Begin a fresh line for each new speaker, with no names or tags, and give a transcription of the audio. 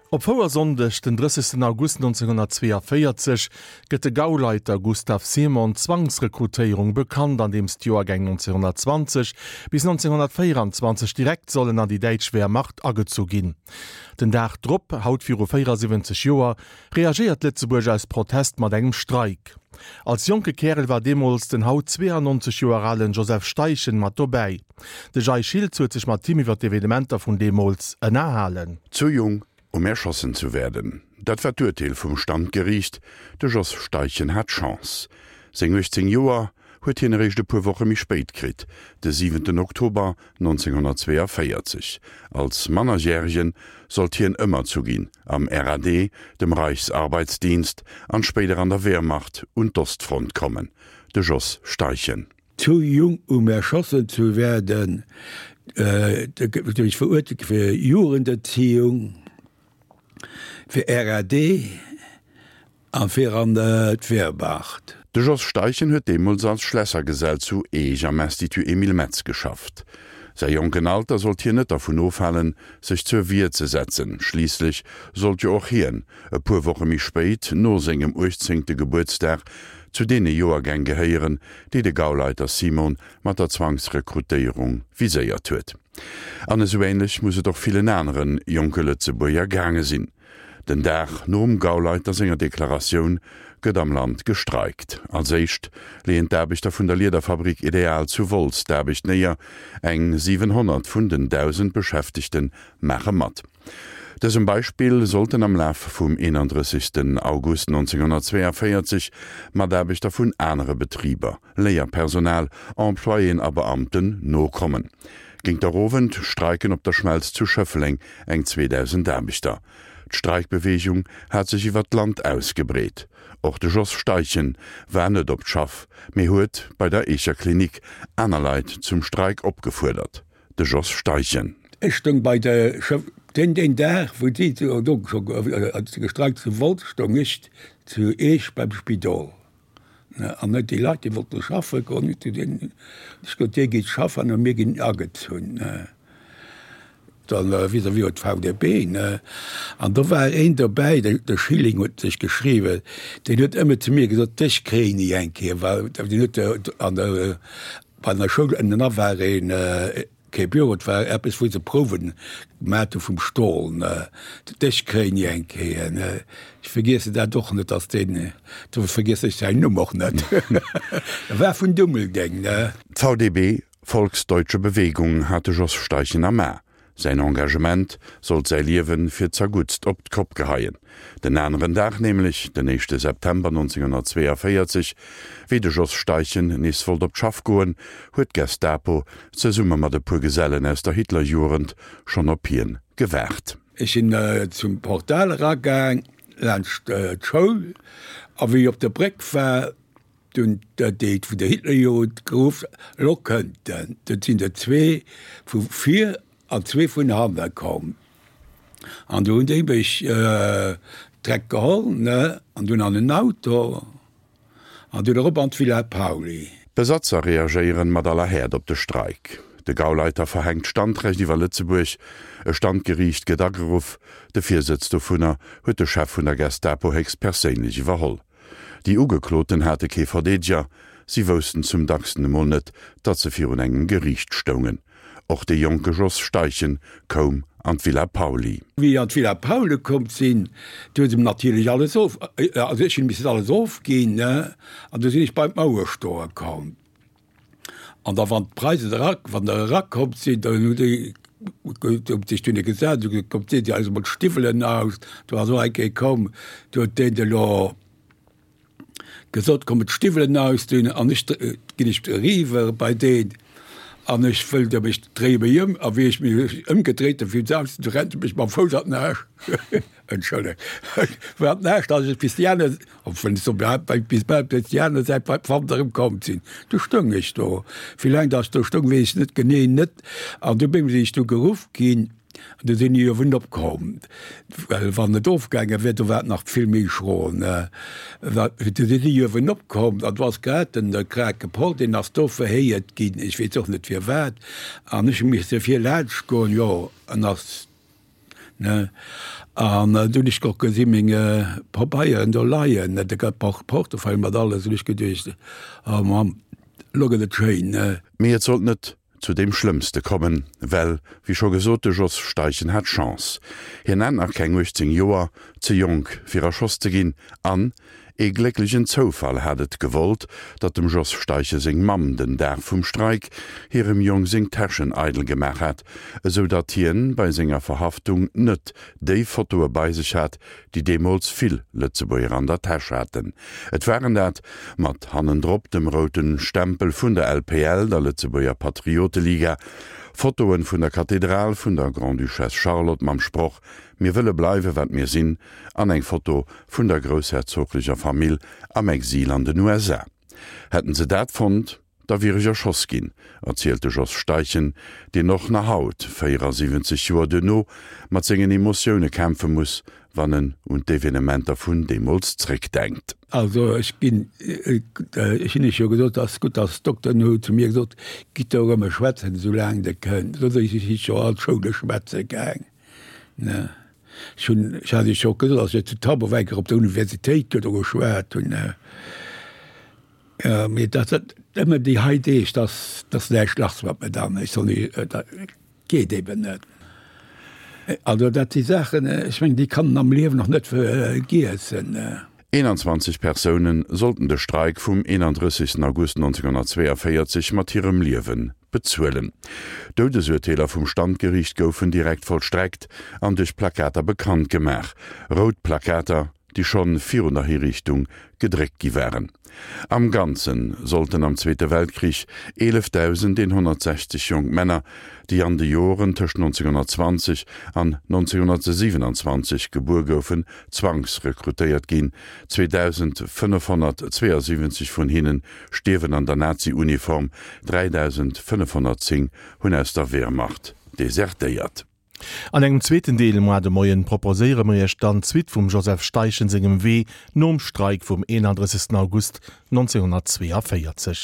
Op Fouersonndeg, den 30 August 1942, gëtt de Gauleiter Gustav Simon d'Zwangsrekrutéierung bekannt, andeems d'Joergäng 1920 bis 1924 direkt sollen an déi däitsch Wehrmacht agezu ginn. Den Dag drop, haut viru 74 Joer, reagéiert Lëtzebuerg aus Protest mat engem Streik. Als jonke Kärel war deemools den haut 92 Joer alen Joseph Steichen mat dobäi. De Jay Schiltz huet sech mat him iwwer d'Evenementer vun deemools ënnerhalen.
Zu jung, um erschossen zu werden. Dat war d'Urteel vum Standgeriicht. De Jos Steichen hat Chance. Seng 18 Joer huet hien eréischt e puer Woche méi spéit kritt, de siwenten Oktober 1942. Als Mannerjäregen sollt hien ëmmer zu ginn am RAD, dem Reichsarbeitsdienst, an spéider an der Wehrmacht un d'Ostfront kommen. De Jos Steichen.
Zu jung um erschossen zu werden, duerch verurteelt fir Jugenderziehung, fir RAD a fir an d'Wehrmacht.
De Jos Steichen huet deemools als Schlässergesell zu Eech am Institut Emile Metz geschafft. Säi jonken Alter sollt hien net dervun ofhalen, sech zur Wier ze setzen. Schliisslech sollt jo och hien, e puer Woche méi spéit, no sengem uechtzéngte Gebuertsdag, zu deene Joergäng gehéieren, déi de Gauleiter Simon mat der Zwangsrekrutéierung viséiert huet. An esou ähnlech muss et och villen anere jonke Lëtzebuerger gaange sinn. Den Dag nom Gauleiter senger Deklaratioun gëtt am Land gestreikt. Als éischt leeën d'Aarbechter vun der Liederfabrik Ideal zu Wolz d'Aarbecht néier. Eng 700 vun den 1.000 Beschäftegte maache mat. Dësem Beispill sollten am Laf vum 31 August 1942 Mataarbechter vun anere Betriber, Léierpersonal, Employéen a Beamten nokommen. Géint der Owend streiken op der Schmelz zu Schëffleng eng 2.000 Aarbechter. D'Streikbeweegung hat sech iwwer d'Land ausgebreet. Och de Jos Steichen war net op d'Schaff, mee huet bei der Eecher Klinik aner Leit zum Streik opgefuerdert. De Jos Steichen.
Ech stoung bei der Schëff deen deen Dag wou si do gestreikt zu Wolz, stoung ech zu Eech beim Spidol. An net déi Leit, déi wollte schaffe goen, hu zu deenen gesot, Dir gitt schaffen a mir ginn agezunn. Dann vis-à-vis huet d'VDB, ne. An do war een dobäi, de Schilling huet sech geschriwwen, deen huet ëmmer zu mir gesot, Dech kréien ech eng Kéier, well deen huet an der, bei der Schoul ënnenan war een, Kee Büro, et war eppes wou se Prouwen gemat hu vum Stol, ne. Dech kréien ech eng Kéier, ne. Ech vergiessen dat och net, dass deen, do vergiessen ech säin Numm och net, e war vun Dummeldeng, ne.
D'VDB, Volksdeutsche Bewegung, hat de Jos Steichen am A. Säin Engagement sollt säi Liewe fir zerguttst op d'Kopp geheien. Den aneren Dag nämlech, den éischte September 1942, wéi de Jos Steichen nees wollt op d'Schaff goen, huet d'Gestapo zesumme mat e puer Gesellen aus der Hitlerjugend schonn op hien gewaart.
Ech sinn zum Portal eragaang, laanscht d'Schoul, a wéi ech op der Bréck war, dunn déi vun der Hitlerjugend geruff, Elo kënnt en! Dunn sinn der zwee vu vir an zwee vun hanne komm. An du hunn déi mech direkt geholl, ne, an dunn an en Auto an dunn erop an d'Villa Pauly.
D'Besatzer reagéieren mat aller Häert op de Streik. De Gauleiter verhänkt d'Standrecht iwwer Lëtzebuerg. E Standgeriicht gëtt ageruff. De Virsëtz dovunner huet de Chef vun der Gestapo héchstperséinlech iwwerholl. Déi Ugekloten hate kee Verdeedeger, si woussten zum dacksten emol net, datt se virun engem Geriicht stoungen. Och de jonke Jos Steichen koum an d'Villa Pauly.
Wéi ech an d'Villa Pauly komm sinn, du hu se mir natierlech alles of, also ech hunn missen alles ofginn, ne, an du sinn ech bei d'Mauer stoe komm. An da wann d'Preisen era, wann der erakomm sinn, dann hu déi sech dunne gesat, hu gesot, kommt deet Dir eis emol d'Stiwwelen aus. Do ass och eng Kéier komm, do huet deen elo gesot, kommen d'Stiwwelen ausdinn an ech ginn ech eriwwer bei deen an ech wëll de mech dréie mech ëm a wéi ech mech ëmgedréit hunn fir se aus, du rennt e mech mam Fouss an den Aarsch, entschëllegt, an den Aarsch, datt ech bis déi aner, obwuel ech soen, bis bal bis déi aner Säit bei d'Wand erëm komm sinn. Du stoung ech do. Wéi laang datt ech do stoung, weess ech net genee net an du sinn ech du geruff ginn. An du sinn déi ierwen opkomm, well wann et ofgaange wier, do war et nach vill méi schro. Du sinn déi ierwen opkomm, an do ass grad den Krake Paul, deen ass do verhéiert ginn, ech weess och net firwat, an ech hu misse vir laanscht goen, jo, en ass. Ne? An du hunn ech och gesi meng Pabeieren do leien, ne, de Portefeuille mat alles, hunn ech geduecht, oh Mamm, elo gëtt et schéin, ne.
Mee et sollt net zu deem Schlëmmste kommen, well, wéi scho gesot, de Jos Steichen hat Chance. Hien hat nach keng 18 Joer, ze jonk fir erschoss ze ginn, an ee glécklegen Zoufall hat et gewollt, datt dem Jos Steichen seng Mamm den Dag vum Streik hirem Jong seng Täschen eidel gemaach hat, esou datt hien bei senger Verhaftung net déi Fotoe bei sech hat, déi deemools vill Lëtzebuerger an der Täsch haten. Et waren dat, mat hannendrop dem route Stempel vun der LPL, der Lëtzebuerger Patrioteliga, Fotoen vun der Kathedral vun der Grande-Duchesse Charlotte mam Sproch Mir wëlle bleiwe wat mir sinn an eng Foto vun der groussherzoglecher Famill am Exil an den USA. Hätten se dat fonnt, da wier ech erschoss ginn, erzielt de Jos Steichen, deen och nach haut, 74 Joer duerno, mat sengen Emotioune kämpfe muss, wann en un d'Evenementer vun deemools zréckdenkt.
Also ech ginn, ech hunn Iech jo gesot, ass gutt, dass d'Dokteren hu zu mir gesot, gitt do erëm schwätzen, esou laang Der kënnt. Soss ech si jo all d'Schoule schwätze gaang, ne. Ech hunn, ech hat Iech jo och gesot, dass ech zu Tabor op der Universitéit do geschwat hunn, ne. Jo, mee dat dat ëmmer déi hei Deeg, dass dass näischt lass mat mir dann. Ech soll ni, dat geet eben net. Also dat si Saachen, ech mengen, déi kann en am Liewen och net vergiessen.
21 Persoune sollten de Streik vum 31 August 1942 mat hirem Liewe bezuelen. Doudesurteeler vum Standgeriicht goufen direkt vollstreckt an duerch Plakater bekannt gemaach, rout Plakater, déi schonn virun der Hiriichtung gedréckt gi waren. Am Ganze sollten am Zweete Weltkrich 11.160 jonk Männer, déi an de Joren tëscht 1920 an 1927 gebuer goufen, zwangsrekrutéiert ginn. 2.572 vun hinne stierwen an der Nazi-Uniform, 3.510 hunn aus der Wehrmacht desertéiert.
An engem zweeten Deel moar de Moien proposéiere mer iech dann d'Suite vum Joseph Steichen sengem Wee nom Streik vum 31 August 1942.